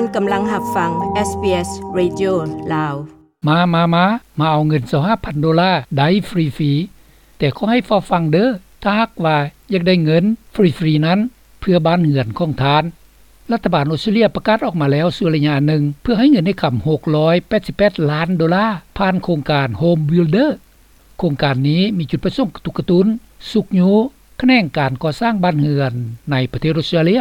ທ່ານກຳລັງຮັບຟັງ ເອສບີເອສ ເຣດິໂອ ລາວ. ມາ ມາ ມາ ມາເອົາເງິນຊາວຫ້າພັນໂດລາໄດ້ຟຣີໆ, ແຕ່ຂໍໃຫ້ເຝົ້າຟັງເດີ້ ຖ້າຫາກວ່າຢາກໄດ້ເງິນຟຣີໆນັ້ນ ເພື່ອບ້ານເຮືອນຂອງທ່ານ. ລັດຖະບານອົດສະຕຣາເລຍປະກາດອອກມາແລ້ວຊົ່ວໄລຍະໜຶ່ງ ເພື່ອໃຫ້ເງິນໃນຄຳຫົກຮ້ອຍແປດສິບແປດລ້ານໂດລາ ຜ່ານໂຄງການ Home Builder. ໂຄງການນີ້ມີຈຸດປະສົງກະຕຸກກະຕຸ້ນ, ຊຸກຍູ້ຂະແໜງການກໍ່ສ້າງບ້ານເຮືອນໃນປະເທດອົດສະຕຣາເລຍ.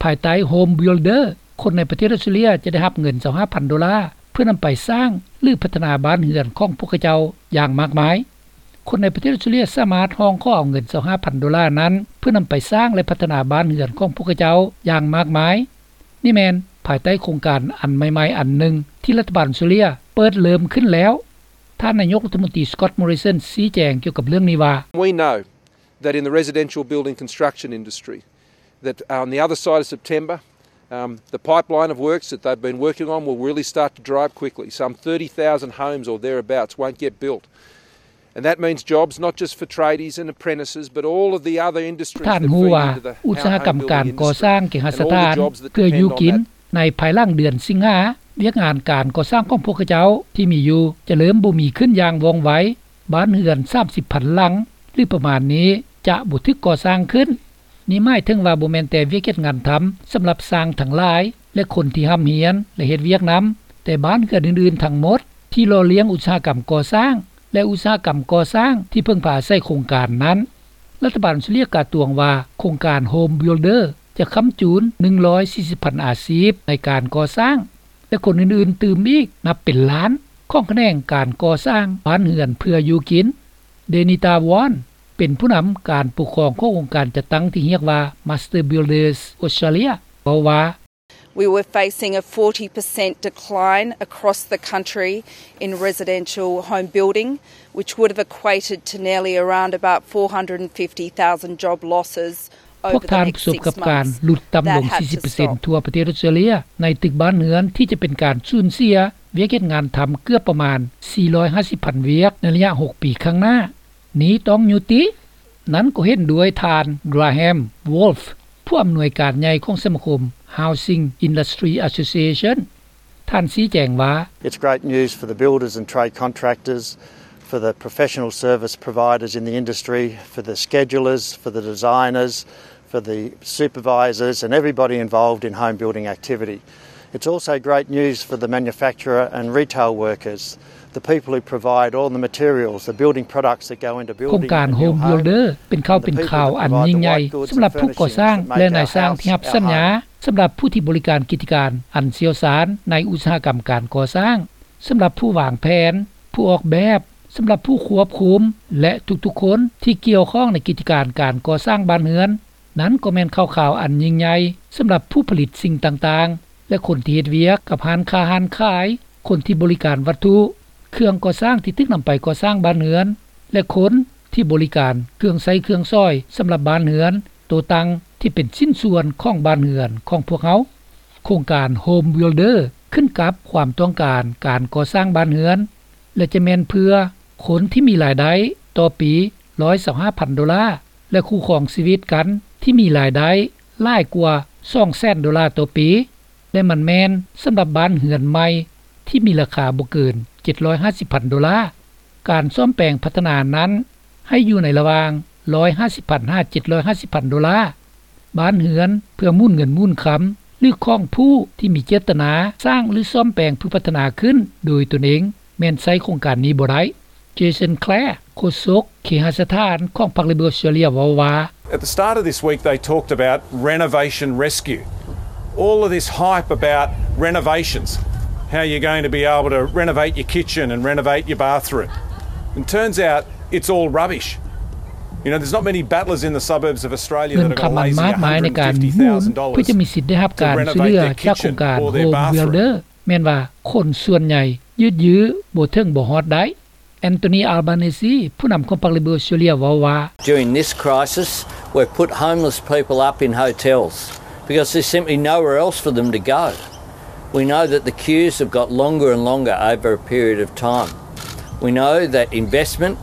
ພາຍໃຕ້ Home Builder, ຄົນໃນປະເທດອົດສະຕຣາເລຍຈະໄດ້ຮັບເງິນຊາວຫ້າພັນໂດລາ ເພື່ອນຳໄປສ້າງ ຫຼື ພັດທະນາບ້ານເຮືອນຂອງພວກເຂົາເຈົ້າຢ່າງມາກມາຍ. ຄົນໃນປະເທດອົດສະຕຣາເລຍສາມາດຮ້ອງຂໍເອົາເງິນຊາວຫ້າພັນໂດລານັ້ນ ເພື່ອນຳໄປສ້າງ ແລະ ພັດທະນາບ້ານເຮືອນຂອງພວກເຂົາເຈົ້າຢ່າງມາກມາຍ. ນີ້ແມ່ນພາຍໃຕ້ໂຄງການອັນໃໝ່ໆອັນໜຶ່ງ ທີ່ລັດຖະບານອົດສະຕຣາເລຍເປີດເລີ່ມຂຶ້ນແລ້ວ. ທ່ານນາຍົກລັດຖະມົນຕີ Scott Morrison ຊີ້ແຈງກ່ຽວກັບເລື່ອງນີ້ວ່າ, We know that in the residential building construction industry, that on the other side of September, um, the pipeline of works that they've been working on will really start to dry up quickly. Some thirty thousand homes or thereabouts won't get built. And that means jobs not just for tradies and apprentices, but all of the other industries that feed into the house building industry and all the jobs that depend on that. ທ່ານຮູ້ວ່າອຸດສາຫະກຳການກໍ່ສ້າງເກຫະສະຖານເພື່ອຢູ່ກິນ ໃນພາຍຫຼັງເດືອນສິງຫາ ວຽກງານການກໍ່ສ້າງຂອງພວກເຂົາເຈົ້າທີ່ມີຢູ່ຈະເລີ່ມບໍ່ມີຂຶ້ນຢ່າງວ່ອງໄວ. ບ້ານເຮືອນສາມສິບພັນຫຼັງ ຫຼື ປະມານນີ້ ຈະບໍ່ຖືກກໍ່ສ້າງຂຶ້ນ. ນີ້ໝາຍເຖິງວ່າບໍ່ແມ່ນແຕ່ວຽກເຮັດງານທຳສຳລັບຊ່າງທັງຫຼາຍ ແລະ ຄົນທີ່ຮ່ຳຮຽນ ແລະ ເຮັດວຽກນຳ, ແຕ່ບ້ານເຮືອນອື່ນໆທັງໝົດທີ່ຫຼໍ່ລ້ຽງອຸດສາຫະກຳກໍ່ສ້າງ ແລະ ອຸດສາຫະກຳກໍ່ສ້າງທີ່ເພິ່ງພາອາໄສໂຄງການນັ້ນ. ລັດຖະບານອົດສະຕຣາເລຍກ່າວຕວງວ່າ ໂຄງການ Home Builder ຈະຄ້ຳຈູນໜຶ່ງຮ້ອຍສີ່ສິບພັນອາຊີບໃນການກໍ່ສ້າງ ແລະ ຄົນອື່ນໆຕື່ມອີກນັບເປັນລ້ານ ຂອງຂະແໜງການກໍ່ສ້າງບ້ານເຮືອນເພື່ອຢູ່ກິນ. Denita Wong ເປັນຜູ້ນຳການປົກຄອງຂອງອົງການຈັດຕັ້ງທີ່ຮຽກວ່າ Master Builders Australia ເວົ້າວ່າ, We were facing a forty percent decline across the country in residential home building, which would have equated to nearly around about four hundred and fifty thousand job losses. ພວກທ່ານປະສົບກັບການຫຼຸດຕ່ຳລົງສີ່ສິບເປີເຊັນທົ່ວປະເທດອົດສະຕຣາເລຍ ໃນຕຶກບ້ານເຮືອນທີ່ຈະເປັນການສູນເສຍວຽກເຮັດງານທຳເກືອບປະມານສີ່ຮ້ອຍຫ້າສິບພັນວຽກໃນໄລຍະຫົກປີຂ້າງໜ້າ. ນີ້ຕ້ອງຍຸຕິ. ນັ້ນກໍເຫັນດ້ວຍທ່ານ Graham Wolf, ຜູ້ອຳນວຍການໃຫຍ່ຂອງສະມາຄົມ Housing Industry Association. ທ່ານຊີ້ແຈງວ່າ, It's great news for the builders and trade contractors, for the professional service providers in the industry, for the schedulers, for the designers, for the supervisors and everybody involved in home building activity. It's also great news for the manufacturer and retail workers, the people who provide all the materials, the building products that go into building a new home. ໂຄງການ Home Builder ເປັນຂ່າວເປັນຄາວອັນຍິ່ງໃຫຍ່ສຳລັບຜູ້ກໍ່ສ້າງ ແລະ ນາຍຊ່າງທີ່ຮັບສັນຍາ, ສຳລັບຜູ້ທີ່ບໍລິການກິດຈະການອັນຊ່ຽວຊານໃນອຸດສາຫະກຳການກໍ່ສ້າງ, ສຳລັບຜູ້ວາງແຜນ, ຜູ້ອອກແບບ, ສຳລັບຜູ້ຄວບຄຸມ ແລະ ທຸກໆຄົນທີ່ກ່ຽວຂ້ອງໃນກິດຈະການການກໍ່ສ້າງບ້ານເຮືອນ. ນັ້ນກໍແມ່ນຂ່າວຄາວອັນຍິ່ງໃຫຍ່ສຳລັບຜູ້ຜະລິດສິ່ງຕ່າງໆ ແລະ ຄົນທີ່ເຮັດວຽກກັບຮ້ານຄ້າຮ້ານຂາຍ, ຄົນທີ່ບໍລິການວັດຖຸ, ເຄື່ອງກໍ່ສ້າງທີ່ຖືກນຳໄປກໍ່ສ້າງບ້ານເຮືອນ ແລະ ຄົນທີ່ບໍລິການເຄື່ອງໃຊ້ເຄື່ອງສອຍສຳລັບບ້ານເຮືອນ, ໂຕຕັ້ງທີ່ເປັນຊິ້ນສ່ວນຂອງບ້ານເຮືອນຂອງພວກເຮົາ. ໂຄງການ Home Builder ຂຶ້ນກັບຄວາມຕ້ອງການການກໍ່ສ້າງບ້ານເຮືອນ ແລະ ຈະແມ່ນເພື່ອຄົນທີ່ມີລາຍໄດ້ຕໍ່ປີຮ້ອຍຊາວຫ້າພັນໂດລາ ແລະ ຄູ່ຄອງຊີວິດກັນທີ່ມີລາຍໄດ້ຫຼາຍກວ່າສອງແສນໂດລາຕໍ່ປີ ແລະ ມັນແມ່ນສຳລັບບ້ານເຮືອນໃໝ່ທີ່ມີລາຄາບໍ່ເກີນເຈັດຮ້ອຍຫ້າສິບພັນໂດລາ. ການສ້ອມແປງພັດທະນານັ້ນໃຫ້ຢູ່ໃນລະຫວ່າງຮ້ອຍຫ້າສິບພັນຫາເຈັດຮ້ອຍຫ້າສິບພັນໂດລາ. ບ້ານເຮືອນເພື່ອໝູນເງິນໝູນຄຳ ຫຼື ຂອງຜູ້ທີ່ມີເຈດຕະນາສ້າງ ຫຼື ສ້ອມແປງເພື່ອພັດທະນາຂຶ້ນໂດຍຕົນເອງ ແມ່ນໃຊ້ໂຄງການນີ້ບໍ່ໄດ້. Jason Clare ໂຄສົກເຄຫະສະຖານຂອງພັກ Labor Australia ເວົ້າວ່າ, At the start of this week, they talked about renovation rescue. All of this hype about renovations, how you're going to be able to renovate your kitchen and renovate your bathroom. And turns out it's all rubbish. You know, there's not many battlers in the suburbs of Australia that have got a lazy ເງິນຄຳອັນມາກມາຍໃນການໝູນເພື່ອຈະມີສິດໄດ້ຮັບການຊ່ວຍເຫຼືອຈາກໂຄງການ Home Builder ແມ່ນວ່າຄົນສ່ວນໃຫຍ່ຢືດຢື້ບໍ່ເຖິງບໍ່ຮອດໄດ້. Anthony Albanese ຜູ້ນຳຂອງພັກ Labor Australia ເວົ້າວ່າ, During this crisis, we've put homeless people up in hotels because there's simply nowhere else for them to go. We know that the queues have got longer and longer over a period of time. We know that investment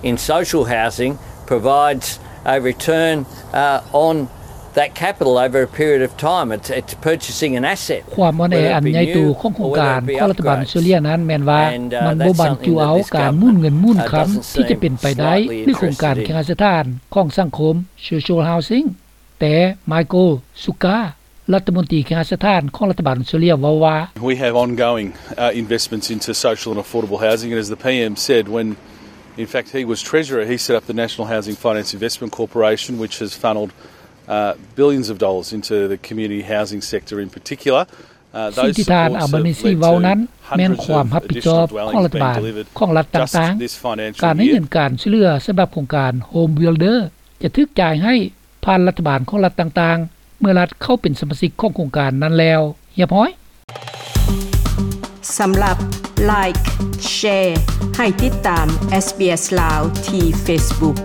in social housing provides a return, uh, on That capital over a period of time, it's, it's purchasing an asset. ຄວາມອ່ອນແອອັນໃຫຍ່ໂຕຂອງໂຄງການຂອງລັດຖະບານອົດສະຕຣາເລຍນັ້ນແມ່ນວ່າ ມັນບໍ່ບັນຈຸເອົາການໝູນເງິນໝູນຄຳທີ່ຈະເປັນໄປໄດ້ ຫຼື ໂຄງການເຄຫະສະຖານຂອງສັງຄົມ Social Housing. ແຕ່ Michael Sukkar ລັດຖະມົນຕີເຄຫະສະຖານຂອງລັດຖະບານອົດສະຕຣາເລຍເວົ້າວ່າ We have ongoing, uh, investments into social and affordable housing, and as the P M said, when, in fact, he was Treasurer, he set up the National Housing Finance Investment Corporation, which has funnelled, uh, billions of dollars into the community housing sector in particular. ສິ່ງທີ່ທ່ານ Albanese ເວົ້ານັ້ນ ແມ່ນຄວາມຮັບຜິດຊອບຂອງລັດຖະບານຂອງລັດຕ່າງໆ ການໃຫ້ເງິນການຊ່ວຍເຫຼືອສຳລັບໂຄງການ Home Builder ຈະຖືກຈ່າຍໃຫ້ຜ່ານລັດຖະບານຂອງລັດຕ່າງໆ ເມື່ອລັດເຂົ້າເປັນສະມາຊິກຂອງໂຄງການນັ້ນແລ້ວຮຽບຮ້ອຍ. ສຳລັບ Like Share ໃຫ້ຕິດຕາມ SBS ລາວ ທີ່ Facebook.